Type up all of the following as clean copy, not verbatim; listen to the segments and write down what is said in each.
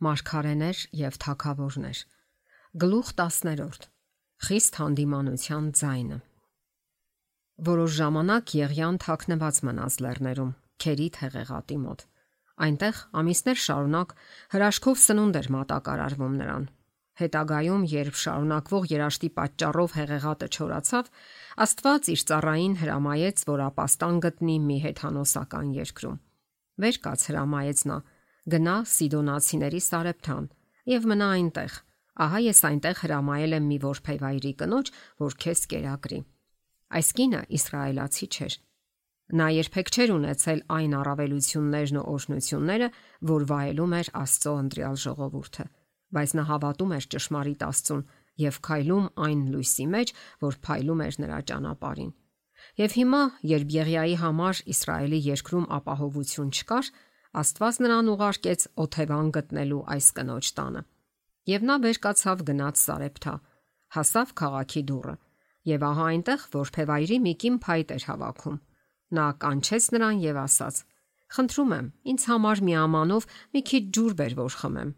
Մարգարեներ եւ թագավորներ։ Գլուխ 10. Խիստ հանդիմանության ձայնը։ Որոշ ժամանակ Եղիան թաքնված մնաց լեռներում, Քերիթ հեղեղատի մոտ։ Այնտեղ ամիսներ շարունակ հրաշքով սնունդ էր մատակարարվում նրան։ Հետագայում, երբ շարունակվող երաշտի պատճառով հեղեղատը չորացավ, Աստված իր ծառային հրամայեց, որ ապաստան գտնի մի հեթանոսական երկրում։ Վեր կաց հրամայեց նա. գնա Սիդոնացիների Սարեփթան եւ մնա այնտեղ։ Ահա ես այնտեղ հրամայել եմ մի որբևայրի կնոջ, որ քեզ կերակրի։ Այս կինը իսրայելացի չէր։ Նա երբեք չէր ունեցել այն առավելություններն ու օրհնությունները, որ վայելում էր Աստծո ընտրյալ ժողովուրդը, բայց նա հավատում էր ճշմարիտ Աստծուն եւ քայլում այն լույսի մեջ, որ փայլում էր նրա ճանապարհին։ Եվ հիմա, երբ Եղիայի համար Իսրայելի երկրում ապահովություն չկար, Աստված նրան ուղարկեց օթևան գտնելու այս կնոջ տանը։ Եվ նա վեր կացավ գնաց Սարեփթա, հասավ քաղաքի դուռը, եւ ահա այնտեղ որբևայրի մի կին փայտ էր հավաքում։ Նա կանչեց նրան եւ ասաց. «Խնդրում եմ, ինձ համար մի ամանով մի քիչ ջուր բեր, որ խմեմ»։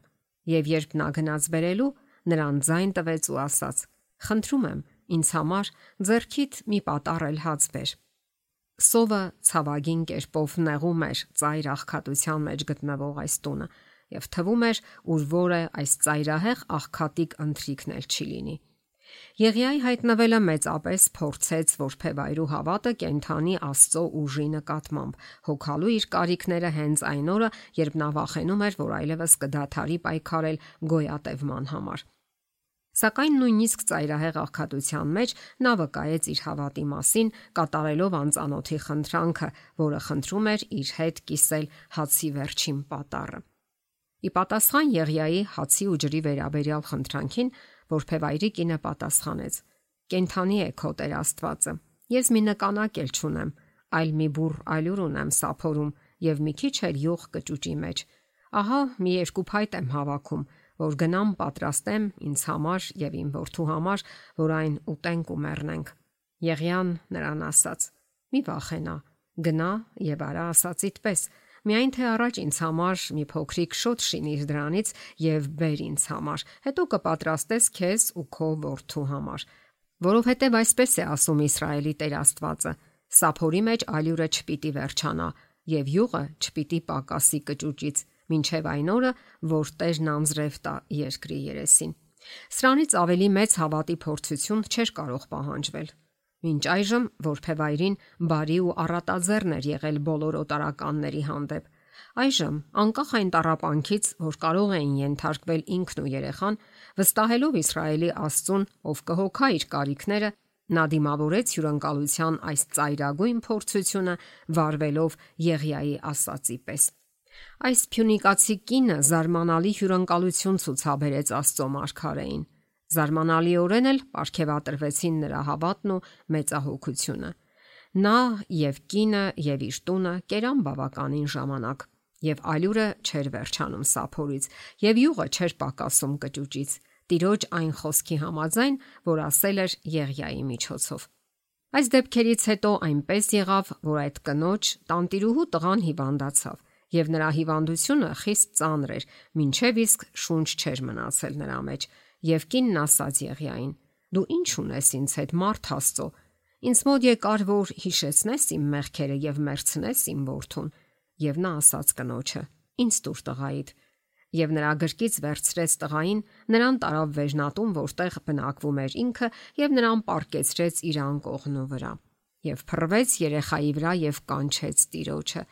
Եվ երբ նա գնաց բերելու, նրան ձայն տվեց ու ասաց. «Խնդրում եմ, ինձ համար ձեռքիդ մի պատառ էլ հաց բեր»։ Սովը ցավագին կերպով նեղում էր ծայր աղքատության մեջ գտնվող այս տունը, եւ թվում էր, ուր որը այս ծայրահեղ աղքատիկ ընթրիքն էլ չի լինի։ Եղիայի հայտնվելը մեծապես փորձեց որբևայրու հավատը կենթանի Աստծո ուժի նկատմամբ, հոգալու իր կարիքները հենց այն օրը, երբ նա վախենում էր, որ այլևս կդադարի պայքարել գոյատևման համար։ Սակայն նույնիսկ ծայրահեղ աղքատության մեջ նա վկայեց իր հավատի մասին, կատարելով անծանոթի խնդրանքը, որը խնդրում էր իր հետ կիսել հացի վերջին պատառը։ Ի պատասխան Եղիայի հացի ու ջրի վերաբերյալ խնդրանքին, որբևայրի կինը պատասխանեց. «Կենթանի է քո Տեր Աստվածը։ Ես մի նկանակ էլ չունեմ, այլ մի բուռ ալյուր ունեմ սափորում եւ մի քիչ էլ յուղ կճուճի մեջ։ Ահա մի երկու փայտ եմ հավաքում, որ գնամ պատրաստեմ ինձ համար եւ իմ որդու համար, որ այն ուտենք ու մեռնենք»։ Եղիան նրան ասաց. «Մի վախենա, գնա եւ արա ասածիդ պես, միայն թե առաջ ինձ համար մի փոքրիկ շոթ շինիր դրանից եւ բեր ինձ համար, հետո կպատրաստես քեզ ու քո որդու համար, որովհետեւ այսպես է ասում Իսրայելի Տեր Աստվածը. սափորի մեջ ալյուրը չպիտի վերջանա եւ յուղը չպիտի պակասի կճուճից, մինչեւ այն օրը, որ Տերն անձրև տա երկրի երեսին»։ Սրանից ավելի մեծ հավատի փորձություն չէր կարող պահանջվել։ Մինչ այժմ որբևայրին բարի ու առատաձեռն էր եղել բոլոր օտարականների հանդեպ։ Այժմ, անկախ այն տառապանքից, որ կարող էին ենթարկվել ինքն ու երեխան, վստահելով Իսրայելի Աստծուն, ով կհոգա իր կարիքները, նա դիմավորեց հյուրընկալության այս ծայրագույն փորձությունը, վարվելով Եղիայի ասածի պես։ Այս փյունիկացի կինը զարմանալի հյուրընկալություն ցուցաբերեց Աստծո մարգարեին։ Զարմանալիորեն էլ պարգևատրվեցին նրա հավատն ու մեծահոգությունը։ Նա եւ կինը եւ իր տունը կերան բավականին ժամանակ, եւ ալյուրը չէր վերջանում սափորից, եւ յուղը չէր պակասում կճուճից, Տիրոջ այն խոսքի համաձայն, որ ասել էր Եղիայի միջոցով։ Այս դեպքերից հետո այնպես եղավ, որ այդ կնոջ տանտիրուհու տղան հիվանդացավ, եւ նրա հիվանդությունը խիստ ծանր էր, մինչեւ իսկ շունչ չէր մնացել նրա մեջ, եւ կինն ասաց Եղիային. «Դու ինչ ունես ինձ հետ, մարդ Աստծո, ինձ մոտ եկար, որ հիշեցնես իմ մեղքերը եւ մերցնես իմ որդուն»։ Եվ նա ասաց կնոջը. «Ինձ տուր տղայիդ»։ Եվ նրա գրկից վերցրեց տղային, նրան տարավ վերնատուն, որտեղ բնակվում էր ինքը, եւ նրան պառկեցրեց իր անկողնու վրա։ Եվ փռվեց երեխայի վրա եւ կանչեց Տիրոջը։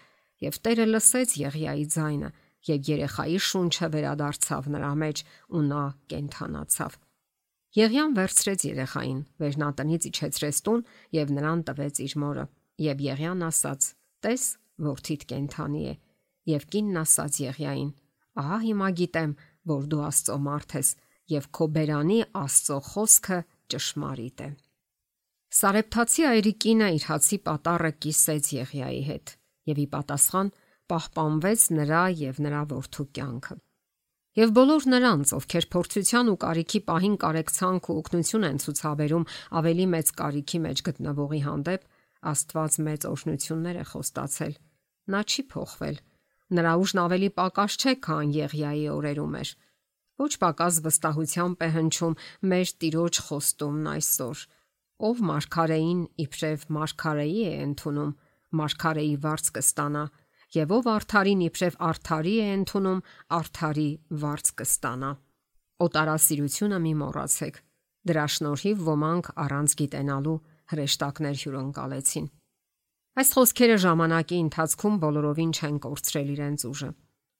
Եվ Տերը լսեց Եղիայի ձայնը, եւ երեխայի շունչը վերադարձավ նրա մեջ, ու նա կենդանացավ։ Եղիան վերցրեց երեխային, վերնատնից իջեցրեց տուն եւ նրան տվեց իր մորը։ Եվ Եղիան ասաց. «Տես, որդիդ կենդանի է»։ Եվ կինն ասաց Եղիային. «Ահա հիմա գիտեմ, որ դու Աստծո մարդ ես եւ քո բերանի Աստծո խոսքը ճշմարիտ է»։ Սարեփթացի այրի կինը իր հացի պատառը կիսեց Եղիայի հետ եւ ի պատասխան պահպանվեց նրա եւ նրա որդու կյանքը։ Եվ բոլոր նրանց, ովքեր փորձության ու կարիքի պահին կարեկցանք ու օգնություն են ցուցաբերում ավելի մեծ կարիքի մեջ գտնվողի հանդեպ, Աստված մեծ օրհնություններ է խոստացել։ Նա չի փոխվել։ Նրա ուժն ավելի պակաս չէ, քան Եղիայի օրերում էր։ Ոչ պակաս վստահությամբ է հնչում մեր Տիրոջ խոստումն այսօր, ով մարգարեին իբրև մարգարեի է ընդունում, մարգարեի վարձ կստանա, եւ ով արդարին իբրև արդարի է ընդունում, արդարի վարձ կստանա։ Օտարասիրությունը մի մոռացեք։ Դրա շնորհիվ ոմանք առանց գիտենալու հրեշտակներ հյուրընկալեցին։ Այս խոսքերը ժամանակի ընթացքում բոլորովին չեն կորցրել իրենց ուժը։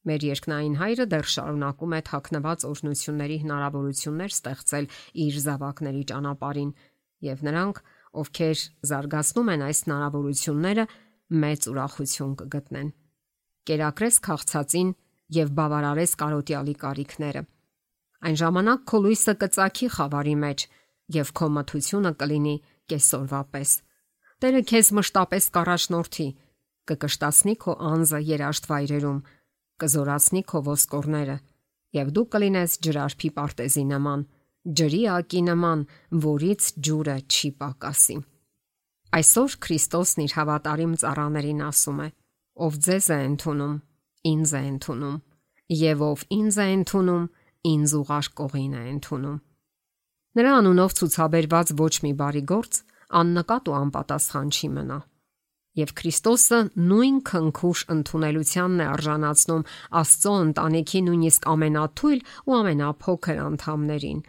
Մեր երկնային Հայրը դեռ շարունակում է թաքնված օրհնությունների հնարավորություններ ստեղծել իր զավակների ճանապարհին, եւ նրանք, ովքեր զարգացնում են այս հնարավորությունները, մեծ ուրախություն կգտնեն։ Կերակրես քաղցածին եւ բավարարես կարոտյալի կարիքները։ Այն ժամանակ քո լույսը կծագի խավարի մեջ եւ քո մթությունը կլինի կեսօրվա պես։ Տերը քեզ մշտապես կառաջնորդի, կկշտացնի քո անձը երաշտ վայրերում, կզորացնի քո ոսկորները եւ դու կլինես ջրարփի պարտեզի նման, ջրի ակի նման, որից ջուրը չի պակասի։ Այսօր Քրիստոսն իր հավատարիմ ծառաներին ասում է. ով ձեզ է ընդունում, ինձ է ընդունում, եւ ով ինձ է ընդունում, ինձ ուղարկողին է ընդունում։ Նրա անունով ցուցաբերված ոչ մի բարի գործ աննկատ ու անպատասխան չի մնա։ Եվ Քրիստոսը նույն քնքուշ ընդունելությանն է արժանացնում Աստծո ընտանիքի նույնիսկ ամենաթույլ ու ամենափոքր անդամներին։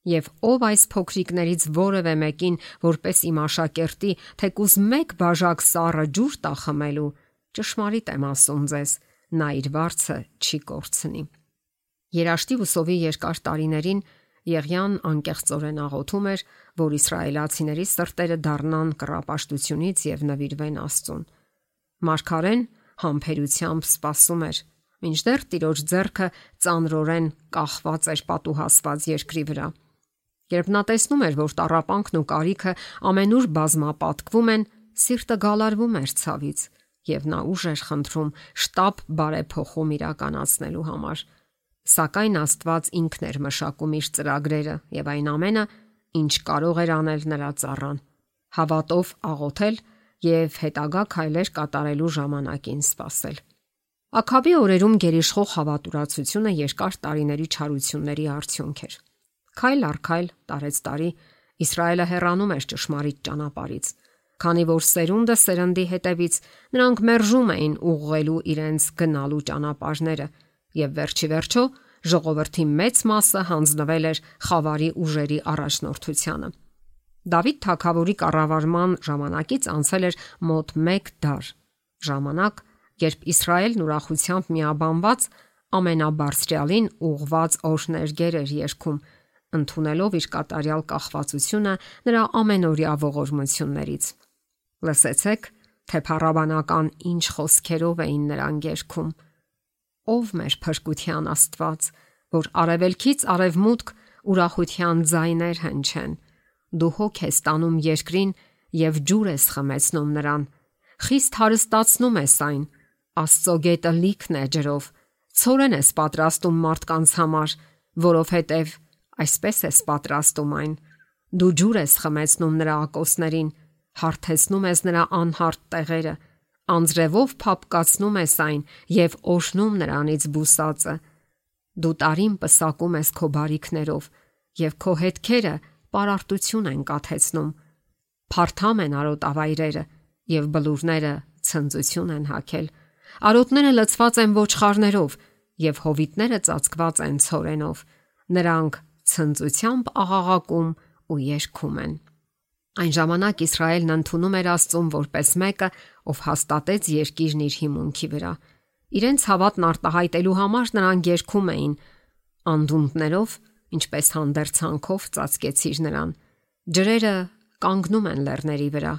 Եվ ով այս փոքրիկներից որևէ մեկին, որպես իմ աշակերտի, թեկուզ մեկ բաժակ սառը ջուր տա խմելու, ճշմարիտ եմ ասում ձեզ, նա իր վարձը չի կորցնի։ Երաշտի ու սովի երկար տարիներին Եղիան անկեղծորեն աղոթում էր, որ իսրայելացիների սրտերը դառնան կռապաշտությունից եւ նվիրվեն Աստծուն։ Մարգարեն համբերությամբ սպասում էր, մինչդեռ Տիրոջ ձեռքը ծանրորեն կախված էր պատուհասված երկրի վրա։ Երբ նա տեսնում էր, որ տառապանքն ու կարիքը ամենուր բազմապատկվում են, սիրտը գալարվում էր ցավից, եւ նա ուժ էր խնդրում շտապ բարեփոխում իրականացնելու համար։ Սակայն Աստված ինքն էր մշակում իր ծրագրերը եւ այն ամենը, ինչ կարող էր անել նրա ծառան, հավատով աղոթել եւ հետագա քայլեր կատարելու ժամանակին սպասել։ Աքավի օրերում գերիշխող հավատուրացությունը երկար տարիների չարությունների արդյունք էր։ Քայլ առ քայլ, տարեց տարի, Իսրայելը հեռանում էր ճշմարիտ ճանապարհից, քանի որ սերունդը սերնդի հետևից նրանք մերժում էին ուղղելու իրենց գնալու ճանապարհները, եւ վերջի վերջո ժողովրդի մեծ մասը հանձնվել էր խավարի ուժերի առաջնորդությանը։ Դավիթ թագավորի կառավարման ժամանակից անցել էր մոտ 1 դար, ժամանակ, երբ Իսրայելն ուրախությամբ միաբանված ամենաբարձրյալին ուղված օրհներգեր էր երգում, ընդունելով իր կատարյալ կախվածությունը նրա ամենօրյա ողորմություններից։ Լսեցեք, թե փառաբանական ինչ խոսքերով էին նրան երգում. Ով մեր փրկության Աստված, որ արևելքից արևմուտք ուրախության ձայներ հնչեն, դու հոգ ես տանում երկրին եւ ջուր ես խմեցնում նրան, խիստ հարստացնում ես այն, Աստծո գետը լիքն է ջրով, ցորեն ես պատրաստում մարդկանց համար, որովհետեւ այսպես ես պատրաստում այն, դու ջուր ես խմեցնում նրա ակոսներին, հարթեցնում ես նրա անհարթ տեղերը, անձրևով փափկացնում ես այն եւ օշնում նրանից բուսածը։ Դու տարին պսակում ես քո բարիքներով եւ քո հետքերը պարարտություն են կաթեցնում։ Փարթամ են արոտավայրերը եւ բլուրները ցնծություն են հագել։ Արոտները լցված են ոչխարներով եւ հովիտները ծածկված են ցորենով։ Նրանք ցնծությամբ աղաղակում ու երգում են։ Այն ժամանակ Իսրայելն ընդունում էր Աստծուն որպես մեկը, ով հաստատեց երկիրն իր հիմունքի վրա։ Իրենց հավատն արտահայտելու համար նրանք երգում էին. անդունդներով, ինչպես հանդերձանքով ծածկեցիր նրան։ Ջրերը կանգնում են լեռների վրա։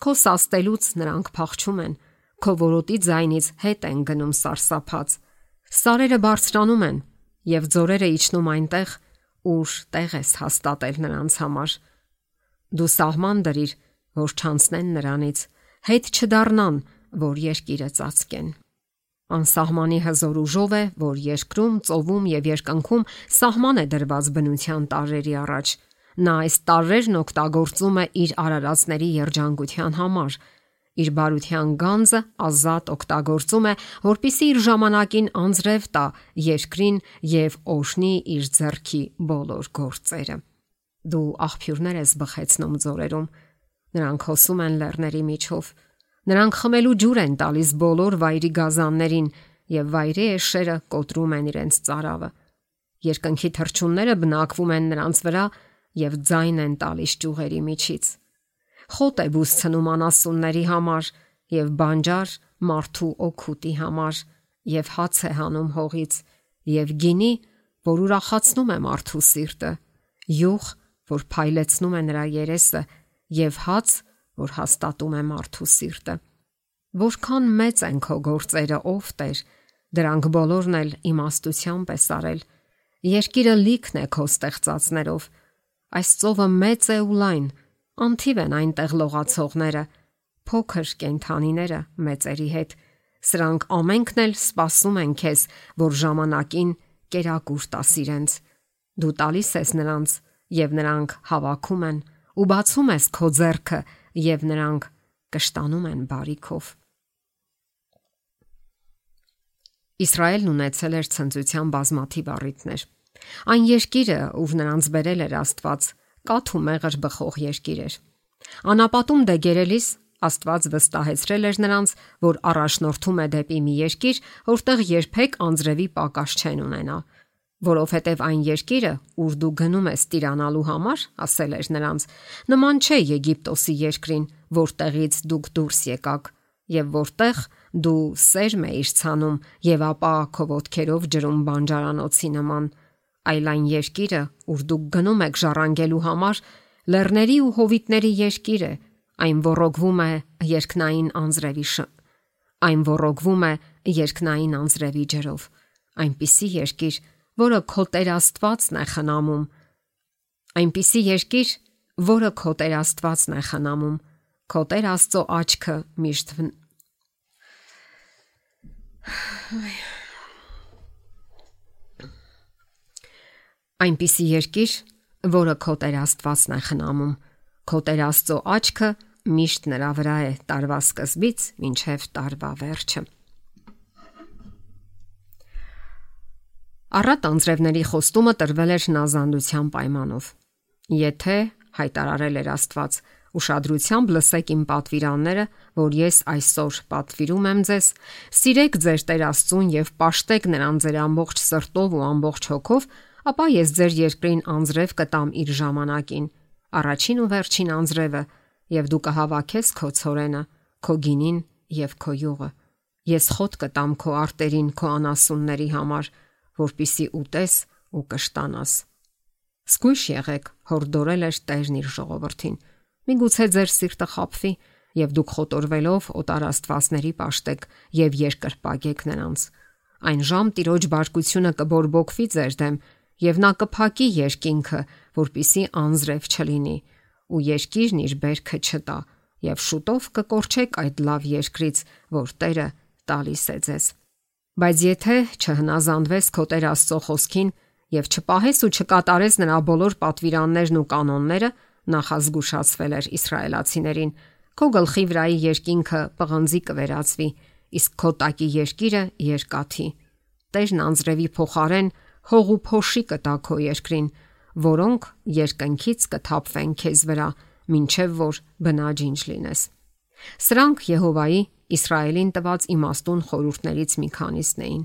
Քո սաստելուց նրանք փախչում են։ Քո որոտի ձայնից հետ են գնում սարսափած։ Սարերը բարձրանում են եւ ձորերը իջնում այնտեղ, ուր տեղ ես հաստատել նրանց համար։ Դու սահման դրիր, որ չանցնեն նրանից, հետ չդառնան, որ երկիրը ծածկեն։ Անսահմանի հզոր ուժով է, որ երկրում, ծովում եւ երկնքում սահման է դրված բնության տարրերի առաջ։ Նա այս տարրերն օգտագործում է իր արարածների երջանկության համար, իր բարության գանձը ազատ օգտագործում է, որպիսի իր ժամանակին անձրև տա երկրին եւ օժնի իր ձեռքի բոլոր գործերը։ Դու աղբյուրներ ես բխեցնում ձորերում, նրանք հոսում են լեռների միջով, նրանք խմելու ջուր են տալիս բոլոր վայրի գազաններին եւ վայրի էշերը կոտրում են իրենց ծարավը։ Երկնքի թռչունները բնակվում են նրանց վրա եւ ձայն են տալիս ճյուղերի միջից։ Խոտ է բուսցնում անասունների համար եւ բանջար մարդու օգուտի համար եւ հաց է հանում հողից եւ գինի, որ ուրախացնում է մարդու սիրտը, յուղ, որ փայլեցնում է նրա երեսը եւ հաց, որ հաստատում է մարդու սիրտը։ Որքան մեծ են քո գործերը, ով Տեր, դրանք բոլորն էլ իմաստությամբ ես արել։ Երկիրը լիքն է քո ստեղծածներով։ Այս ծովը մեծ է ու լայն, անթիվ են այնտեղ լողացողները, փոքր կենդանիները մեծերի հետ։ Սրանք ամենքն էլ սպասում են քեզ, որ ժամանակին կերակուր տաս իրենց։ Դու տալիս ես նրանց, եւ նրանք հավաքում են, ու բացում ես քո ձեռքը, եւ նրանք կշտանում են բարիքով։ Իսրայելն ունեցել էր ցնծության բազմաթիվ առիթներ։ Այն երկիրը, ուր նրանց բերել էր Աստված, կաթ ու մեղր բխող երկիր էր։ Անապատում դեգերելիս Աստված վստահեցրել էր նրանց, որ առաջնորդում է դեպի մի երկիր, որտեղ երբեք անձրևի պակաս չեն ունենա, որովհետև այն երկիրը, ուր դու գնում ես տիրանալու համար, ասել էր նրանց, նման չէ Եգիպտոսի երկրին, որտեղից դուք դուրս եկաք, եւ որտեղ դու սերմ էիր ցանում եւ ապա քո ոտքերով ջրում բանջարանոցի նման, այլ այն երկիրը, ուր դուք գնում եք ժառանգելու համար, լեռների ու հովիտների երկիր է, այն ոռոգվում է երկնային անձրևի ջրով, այնպիսի երկիր, որը քո Տեր Աստվածն է խնամում, այնպիսի երկիր, որը քո Տեր Աստվածն է խնամում, քո Տեր Աստծո աչքը միշտ այնպիսի երկիր, որը քո Տեր Աստվածն է խնամում, քո Տեր Աստծո աչքը միշտ նրա վրա է տարվա սկզբից մինչև տարվա վերջը։ Առատ անձրևների խոստումը տրվել էր հնազանդության պայմանով։ Եթե հայտարարել էր Աստված, ուշադրությամբ լսեք իմ պատվիրանները, որ ես այսօր պատվիրում եմ ձեզ, սիրեք ձեր Տեր Աստծուն եւ պաշտեք նրան ձեր ամբողջ սրտով ու ամբողջ հոգով, ապա ես ձեր երկրին անձրև կտամ իր ժամանակին, առաջին ու վերջին անձրևը, եւ դու կհավաքես քո ցորենը, քո գինին եւ քո յուղը։ Ես խոտ կտամ քո արտերին, քո անասունների համար, որպիսի ուտես ու կշտանաս։ Զգույշ եղեք, հորդորել էր Տերն իր ժողովրդին։ Միգուցե ձեր սիրտը խաբվի, եւ դուք խոտորվելով օտար աստվածների պաշտեք եւ երկրպագեք նրանց։ Այն ժամ Տիրոջ բարկությունը կբորբոքվի ձեր դեմ, եւ նա կփակի երկինքը, որպիսի անձրև չլինի, ու երկիրն իր բերքը չտա, եւ շուտով կկորչեք այդ լավ երկրից, որ Տերը տալիս է ձեզ։ Բայց եթե չհնազանդվես քո Տեր Աստծո խոսքին եւ չպահես ու չկատարես նրա բոլոր պատվիրաններն ու կանոնները, նախազգուշացվել էր իսրայելացիներին, քո գլխի վրայի երկինքը պղնձի կվերածվի, իսկ քո տակի երկիրը երկաթի։ Տերն անձրևի փոխարեն հող ու փոշի կտա քո երկրին, որոնք երկնքից կթափվեն քեզ վրա, մինչև որ բնաջինջ լինես։ Սրանք Եհովայի Իսրայելին տված իմաստուն խորհուրդներից մի քանիսն էին։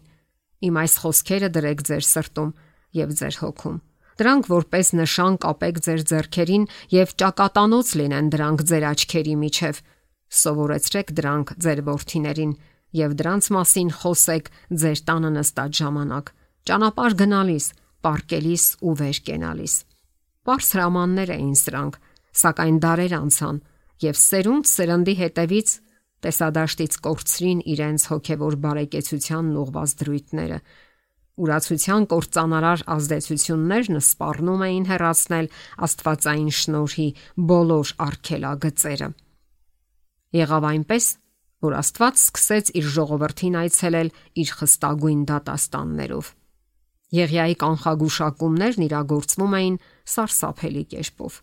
Իմ այս խոսքերը դրեք ձեր սրտում եւ ձեր հոգում։ Դրանք որպես նշան կապեք ձեր ձեռքերին եւ ճակատանոց լինեն դրանք ձեր աչքերի միջև։ Սովորեցրեք դրանք ձեր որդիներին եւ դրանց մասին խոսեք ձեր տանը նստած ժամանակ, ճանապարհ գնալիս, պարկելիս ու վեր կենալիս։ Պարզ հրամաններ էին սրանք, սակայն դարեր անցան եւ սերունդ սերնդի հետևից տեսադաշտից կորցրին իրենց հոգևոր բարեկեցությանն ուղված դրույթները։ Ուրացության կործանարար ազդեցություններն սպառնում էին հեռացնել աստվածային շնորհի բոլոր արգելագծերը։ Եղավ այնպես, որ Աստված սկսեց իր ժողովրդին այցելել իր խստագույն դատաստաններով։ Եղիայի կանխագուշակումներն իրագործվում էին սարսափելի կերպով։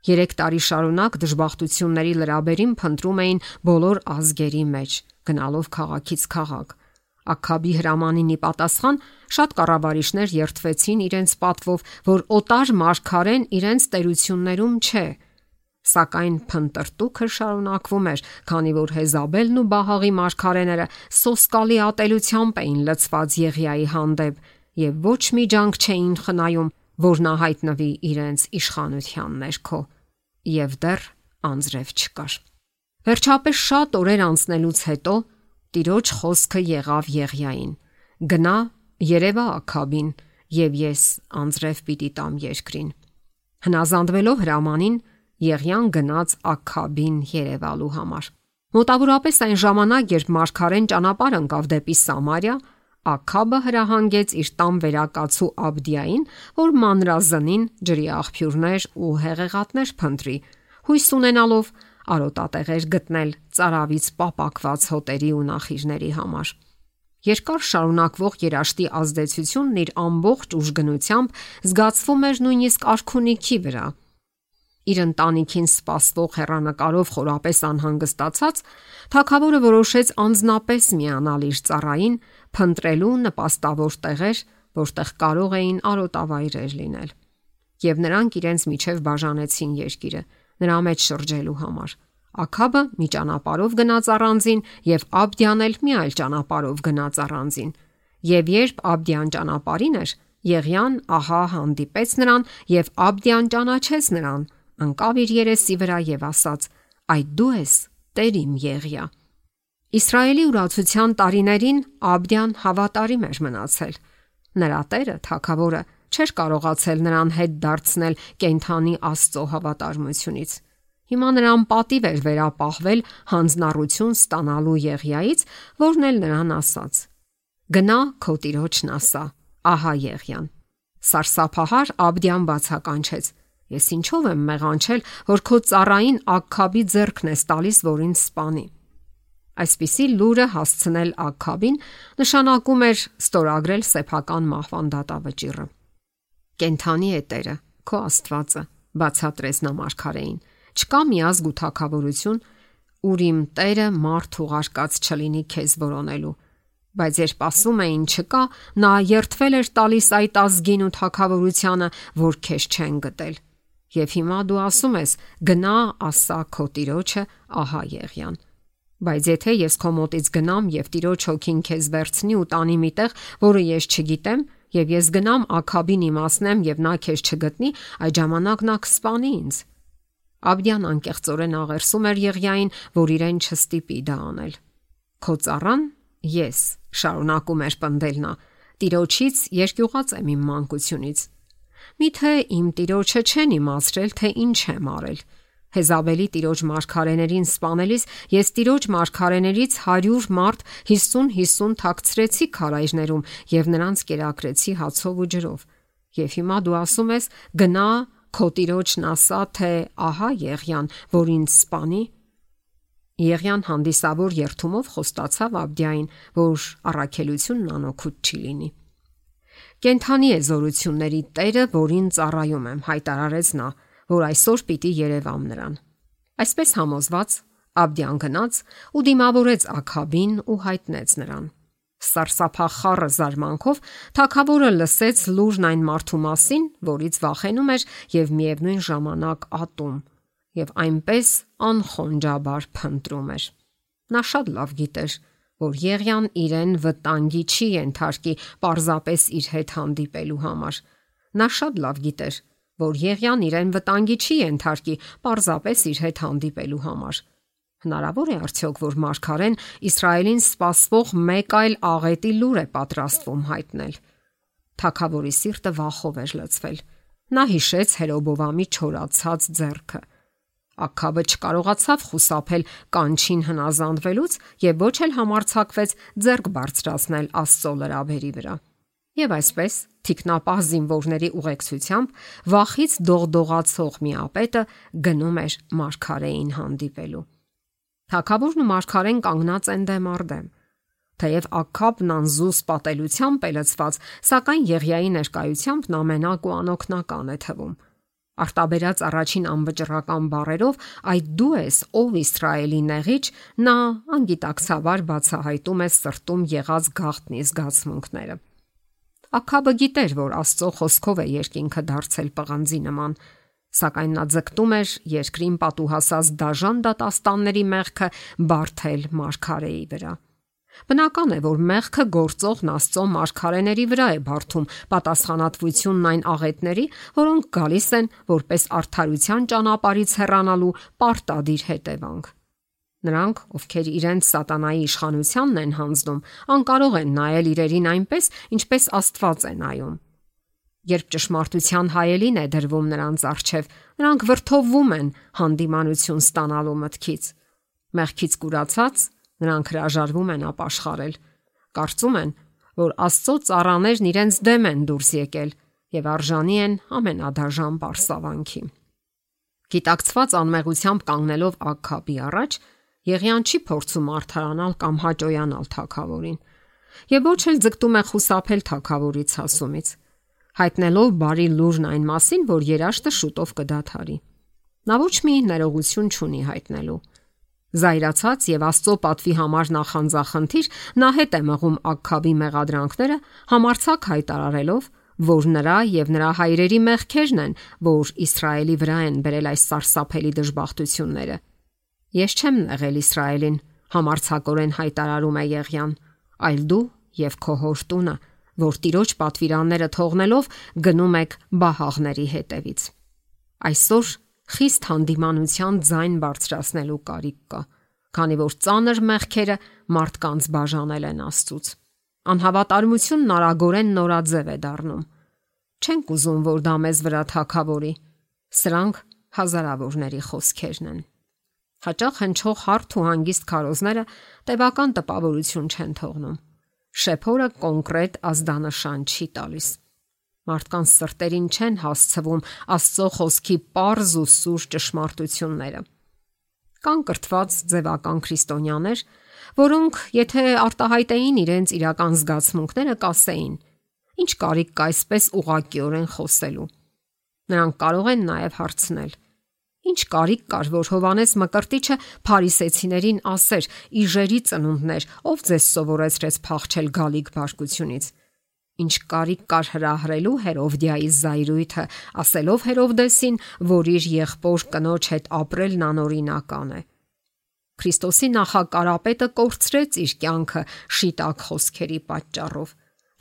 3 տարի շարունակ դժբախտությունների լրաբերին փնտրում էին բոլոր ազգերի մեջ, գնալով քաղաքից քաղաք։ Աքաբի հրամանին ի պատասխան շատ կառավարիչներ երդվեցին իրենց պատվով, որ օտար մարգարեն իրենց տերություններում չէ։ Սակայն փնտրտուքը շարունակվում էր, քանի որ Հեզաբելն ու Բահաղի մարգարեները սոսկալի ատելությամբ էին լցված Եղիայի հանդեպ եւ ոչ մի ջանք չէին խնայում, որ նա հայտնվի իրենց իշխանության ներքո։ Եվ դեռ անձրև չկար։ Վերջապես շատ օրեր անցնելուց հետո Տիրոջ խոսքը եղավ Եղիային. «Գնա, երևա Աքաբին, եւ ես անձրև պիտի տամ երկրին»։ Հնազանդվելով հրամանին, Եղիան գնաց Աքաբին երևալու համար։ Մոտավորապես այն ժամանակ, երբ մարգարեն ճանապարհ ընկավ դեպի Սամարիա, Աքաբը հրահանգեց իր տան վերակացու Աբդիային, որ մանրազնին ջրի աղբյուրներ ու հեղեղատներ փնտրի, հույս ունենալով արոտատեղեր գտնել ծարավից պապակված հոտերի ու նախիժների համար։ Երկար շարունակվող երաշտի ազդեցությունն իր ամբողջ ուժգնությամբ զգացվում էր նույնիսկ արքունիքի վրա։ Իր ընտանիքին սպասվող հեռանկարով խորապես անհանգստացած, թագավորը որոշեց անձնապես միանալ իր ծառային, փնտրելու նպաստավոր տեղեր, որտեղ կարող էին արոտավայրեր լինել։ Եվ նրանք իրենց միջև բաժանեցին երկիրը, նրա մեջ շրջելու համար։ Աքաբը մի ճանապարհով գնաց առանձին, եւ Աբդիան էլ մի այլ ճանապարհով գնաց առանձին։ Եվ երբ Աբդիան ճանապարհին էր, Եղիան ահա հանդիպեց նրան, եւ Աբդիան ճանաչեց նրան, ընկավ իր երեսի վրա եւ ասաց. «Այդ դու ես, Տեր իմ Եղիա»։ Իսրայելի ուրացության տարիներին Աբդիան հավատարիմ էր մնացել։ Նրա տերը, թագավորը, չէր կարողացել նրան հետ դարձնել կենդանի Աստծո հավատարմությունից։ Հիմա նրան պատիվ էր վերապահվել հանձնառություն ստանալու Եղիայից, որն էլ նրան ասաց. «Գնա քո տիրոջն ասա, ահա Եղիան»։ Սարսափահար Աբդիան բացականչեց. «Ես ինչով եմ մեղանչել, որ քո ծառային Աքաբի ձեռքն ես տալիս, որ ինձ սպանի»։ Այսպիսի լուրը հասցնել Աքաբին նշանակում էր ստորագրել սեփական մահվան դատավճիռը։ «Կենթանի է Տերը, քո Աստվածը», բացատրեց նա մարգարեին։ «Չկա մի ազգ ու թագավորություն, ուր իմ Տերը մարդ ուղարկած չլինի քեզ որոնելու»։ Բայց երբ ասում էին չկա, նա երդվել էր տալիս այդ ազգին ու թագավորությանը, որ քեզ չեն գտել։ Եվ հիմա դու ասում ես. «Գնա, ասա քո տիրոջը, ահա Եղիան»։ Բայց եթե ես քո մոտից գնամ եւ Տիրոջ հոգին քեզ վերցնի ու տանի միտեղ, որը ես չգիտեմ, եւ ես գնամ Աքաբին իմացնեմ եւ նա քեզ չգտնի, այդ ժամանակ նա կսպանի ինձ։ Աբդիան անկեղծորեն աղերսում էր Եղիային, որ իրեն չստիպի դա անել։ Քո ծառան ես, շարունակում էր պնդել նա, Տիրոջից երկյուղած եմ իմ մանկությունից։ Միթե իմ Տիրոջը չեն իմացրել, թե ինչ եմ արել։ Հեզաբելի Տիրոջ մարգարեներին սպանելիս ես Տիրոջ մարգարեներից 100 մարդ 50-50 թաքցրեցի քարայրներում եւ նրանց կերակրեցի հացով ու ջրով։ Եվ հիմա դու ասում ես. «Գնա քո Տիրոջն ասա, թե ահա Եղիան, որ ինձ սպանի»։ Եղիան հանդիսավոր երթումով խոստացավ Աբդիային, որ առաքելությունն անօգուտ չի լինի։ «Կենթանի է զորությունների Տերը, որին ծառայում եմ», հայտարարեց նա, որ այսօր պիտի երևամ նրան։ Այսպես համոզված Աբդիան գնաց ու դիմավորեց Աքաբին ու հայտնեց նրան։ Սարսափախառը զարմանքով թագավորը լսեց լուրն այն մարդու մասին, որից վախենում էր եւ միևնույն ժամանակ ատում, եւ այնպես անխոնջաբար փնտրում էր։ Նա շատ լավ գիտեր, որ Եղիան իրեն վտանգի չի ենթարկի պարզապես իր հետ հանդիպելու համար։ Նա շատ լավ գիտեր, որ Եղիան իրեն վտանգի չի ենթարկի պարզապես իր հետ հանդիպելու համար։ Հնարավոր է արդյոք, որ մարգարեն Իսրայելին սպասվող մեկ այլ աղետի լուր է պատրաստվում հայտնել։ Թագավորի սիրտը վախով էր լցվել։ Նա հիշեց Հերոբովամի չորացած ձեռքը։ Աքաբը չկարողացավ խուսափել կանչին հնազանդվելուց եւ ոչ էլ համարձակվեց ձեռք բարձրացնել Աստծո լրաբերի վրա։ Եվ այսպես թիկնապահ զինվորների ուղեկցությամբ վախից դողդողացող մի ապետը գնում էր մարգարեին հանդիպելու։ Թագավորն ու մարգարեն կանգնած են դեմ առ դեմ։ Թեև Աքաբն անզուս պատելությամբ է լցված, սակայն Եղիայի ներկայությամբ նա մենակ ու անօգնական է թվում։ Արտաբերած առաջին անվճռական բառերով այդ դու ես, ով Իսրայելի նեղիչ, նա անգիտակցաբար բացահայտում է սրտում եղած գաղտնի զգացմունքները։ Աքաբը գիտեր, որ Աստծո խոսքով է երկինքը դարձել պղնձի նման, սակայն նա ձգտում էր երկրին պատուհասած դաժան դատաստանների մեղքը բարթել մարգարեի վրա։ Բնական է, որ մեղքը գործողն Աստծո մարգարեների վրա է բարթում պատասխանատվությունն այն աղետների, որոնք գալիս են որպես արդարության ճանապարհից հեռանալու պարտադիր հետևանք։ Նրանք, ովքեր իրենց սատանայի իշխանությանն են հանձնում, անկարող են նայել իրերին այնպես, ինչպես Աստված է նայում։ Երբ ճշմարտության հայելին է դրվում նրանց առջև, նրանք վրդովվում են հանդիմանություն ստանալու մտքից։ Մեղքից կուրացած նրանք հրաժարվում են ապաշխարել։ Կարծում են, որ Աստծո ծառաներն իրենց դեմ են դուրս եկել եւ արժանի են ամենադաժան պարսավանքի։ Գիտակցված անմեղությամբ կանգնելով Աքաբի առաջ, Եղիան չի փորձում արդարանալ կամ հաճոյանալ թագավորին, եւ ոչ էլ ձգտում է խուսափել թագավորից հասումից, հայտնելով բարի լուրն այն մասին, որ երաշտը շուտով կդադարի։ Նա ոչ մի ներողություն չունի հայտնելու։ Զայրացած եւ Աստծո պատվի համար նախանձախնդիր, նա հետ է մղում Աքաբի մեղադրանքները, համարձակ հայտարարելով, որ նրա եւ նրա հայրերի մեղքերն են, որ Իսրայելի վրա են բերել այս սարսափելի դժբախտությունները։ Ես չեմ նեղել Իսրայելին, համարձակորեն հայտարարում է Եղիան, այլ դու եւ քո հոր տունը, որ Տիրոջ պատվիրանները թողնելով գնում եք բահաղների հետևից։ Այսօր խիստ հանդիմանության ձայն բարձրացնելու կարիք կա, քանի որ ծանր մեղքերը մարդկանց բաժանել են Աստծուց։ Անհավատարմությունն արագորեն նորաձև է դառնում։ Չենք ուզում, որ դա մեզ վրա թագավորի։ Սրանք հազարավորների խոսքերն են։ Հաճախ հնչող հարթ ու հանգիստ քարոզները տևական տպավորություն չեն թողնում։ Շեփորը կոնկրետ ազդանշան չի տալիս։ Մարդկանց սրտերին չեն հասցվում Աստծո խոսքի պարզ ու սուր ճշմարտությունները։ Կան կրթված ձևական քրիստոնյաներ, որոնք եթե արտահայտեին իրենց իրական զգացմունքները, կասեին. ինչ կարիք կա այսպես ուղղակիորեն խոսելու։ Նրանք կարող են նաև հարցնել. ինչ կարիք կար, որ Հովանես Մկրտիչը փարիսեցիներին ասեր. իժերի ծնունդներ, ով ձեզ սովորեցրեց փախչել գալիք բարկությունից։ Ինչ կարիք կար հրահրելու Հերովդիայի զայրույթը, ասելով Հերովդեսին, որ իր եղբոր կնոջ հետ ապրելն անօրինական է։ Քրիստոսի նախակարապետը կորցրեց իր կյանքը շիտակ խոսքերի պատճառով։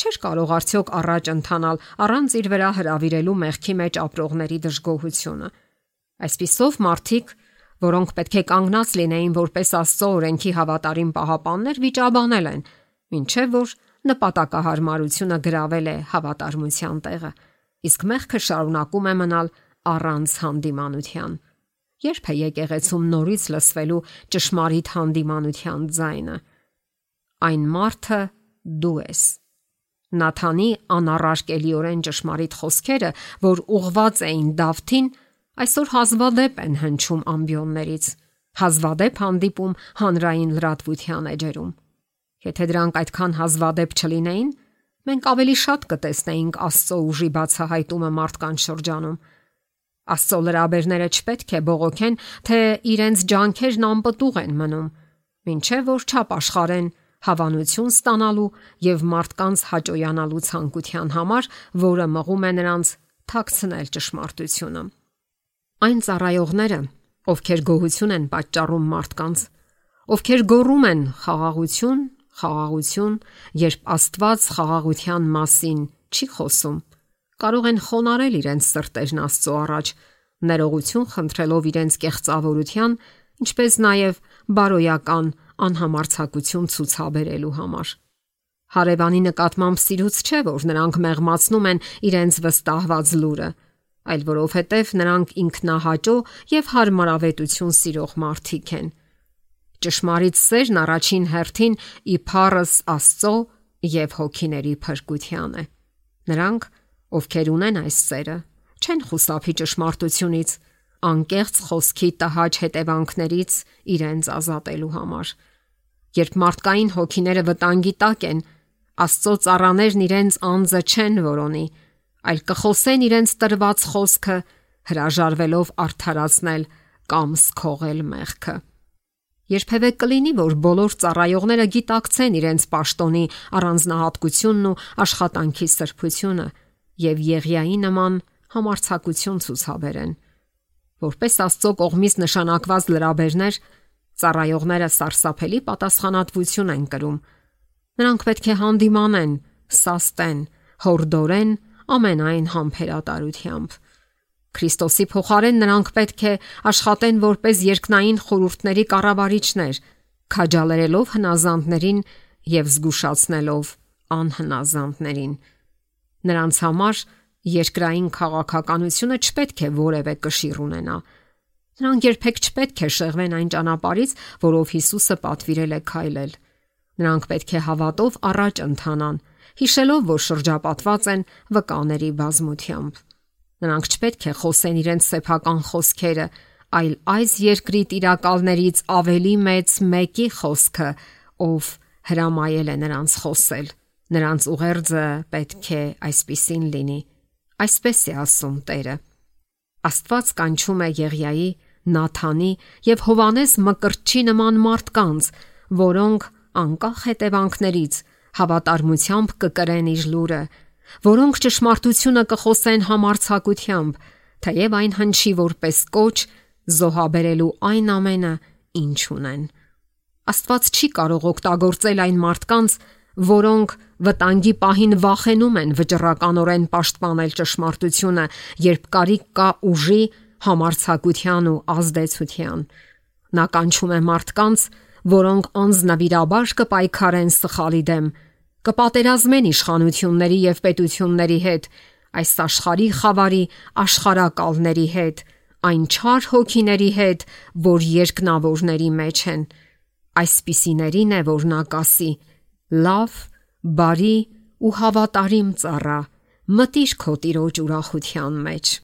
Չէր կարող արդյոք առաջ ընթանալ առանց իր վրա հրավիրելու մեղքի մեջ ապրողների դժգոհությունը։ Այսպիսով մարդիկ, որոնք պետք է կանգնած լինեին որպես Աստծո օրենքի հավատարիմ պահապաններ, վիճաբանել են, մինչև որ նպատակահարմարությունը գրավել է հավատարմության տեղը, իսկ մեղքը շարունակում է մնալ առանց հանդիմանության։ Երբ է եկեղեցում նորից լսվելու ճշմարիտ հանդիմանության ձայնը։ Այն մարդը դու ես։ Նաթանի անառարկելիորեն ճշմարիտ խոսքերը, որ ուղված էին Դավթին, այսօր հազվադեպ են հնչում ամբիոններից, հազվադեպ հանդիպում հանրային լրատվության էջերում։ Եթե դրանք այդքան հազվադեպ չլինեին, մենք ավելի շատ կտեսնեինք Աստծո ուժի բացահայտումը մարդկանց շրջանում։ Աստծո լրաբերները չպետք է բողոքեն, թե իրենց ջանքերն անպտուղ են մնում, մինչև որ չապաշխարեն հավանություն ստանալու եւ մարդկանց հաճոյանալու ցանկության համար, որը մղում է նրանց թաքցնել ճշմարտությունը։ Այն ծառայողները, ովքեր գոհություն են պատճառում մարդկանց, ովքեր գոռում են խաղաղություն, խաղաղություն, երբ Աստված խաղաղության մասին չի խոսում, կարող են խոնարհել իրենց սրտերն Աստծո առաջ, ներողություն խնդրելով իրենց կեղծավորության, ինչպես նաև բարոյական անհամարձակություն ցուցաբերելու համար։ Հարևանի նկատմամբ սիրուց չէ, որ նրանք մեղմացնում են իրենց վստահված լուրը, այլ որովհետև նրանք ինքնահաճո եւ հարմարավետություն սիրող մարդիկ են։ Ճշմարիտ սերն առաջին հերթին իբարս Աստծո եւ հոգիների փրկության է։ Նրանք, ովքեր ունեն այս սերը, չեն խուսափի ճշմարտությունից, անկեղծ խոսքի տհաճ հետևանքներից իրենց ազատելու համար։ Երբ մարդկային հոգիները վտանգի տակ են, Աստծո ծառաներն իրենց անձը չեն որոնի, այլ կխոսեն իրենց տրված խոսքը հրաժարվելով արդարացնել կամ սքողել մեղքը։ Երբևէ կլինի, որ բոլոր ծառայողները գիտակցեն իրենց պաշտոնի առանձնահատկությունն ու աշխատանքի սրբությունը եւ Եղիայի նման համարձակություն ցուցաբերեն։ Որպես Աստծո կողմից նշանակված լրաբերներ, ծառայողները սարսափելի պատասխանատվություն են կրում։ Նրանք պետք է հանդիմանեն, սաստեն, հորդորեն ամենայն համբերատարությամբ։ Քրիստոսի փոխարեն նրանք պետք է աշխատեն որպես երկնային խորհուրդների կառավարիչներ, քաջալերելով հնազանդներին եւ զգուշացնելով անհնազանդներին։ Նրանց համար երկրային քաղաքականությունը չպետք է որևէ կշիռ ունենա։ Նրանք երբեք չպետք է շեղվեն այն ճանապարհից, որով Հիսուսը պատվիրել է քայլել։ Նրանք պետք է հավատով առաջ ընթանան, հիշելով, որ շրջապատված են վկաների բազմությամբ։ Նրանք չպետք է խոսեն իրենց սեփական խոսքերը, այլ այս երկրի տիրակալներից ավելի մեծ մեկի խոսքը, ով հրամայել է նրանց խոսել։ Նրանց ուղերձը պետք է այսպիսին լինի։ Այսպես է ասում Տերը։ Աստված կանչում է Եղիայի, Նաթանի եւ Հովանես Մկրտչի նման մարդկանց, որոնք անկախ հետևանքներից հավատարմությամբ կկրեն իր լուրը, որոնք ճշմարտությունը կխոսեն համարձակությամբ, թեև այն հնչի որպես կոչ զոհաբերելու այն ամենը, ինչ ունեն։ Աստված չի կարող օգտագործել այն մարդկանց, որոնք վտանգի պահին վախենում են վճռականորեն պաշտպանել ճշմարտությունը, երբ կարիք կա ուժի, համարձակության ու ազդեցության։ Նա կանչում է մարդկանց, որոնք անձնվիրաբար կպայքարեն սխալի դեմ, կպատերազմեն իշխանությունների եւ պետությունների հետ, այս աշխարհի խավարի աշխարհակալների հետ, այն չար հոգիների հետ, որ երկնավորների մեջ են։ Այսպիսիներին է, որ նա կասի. լավ, բարի ու հավատարիմ ծառա, մտիր քո տիրոջ ուրախության մեջ։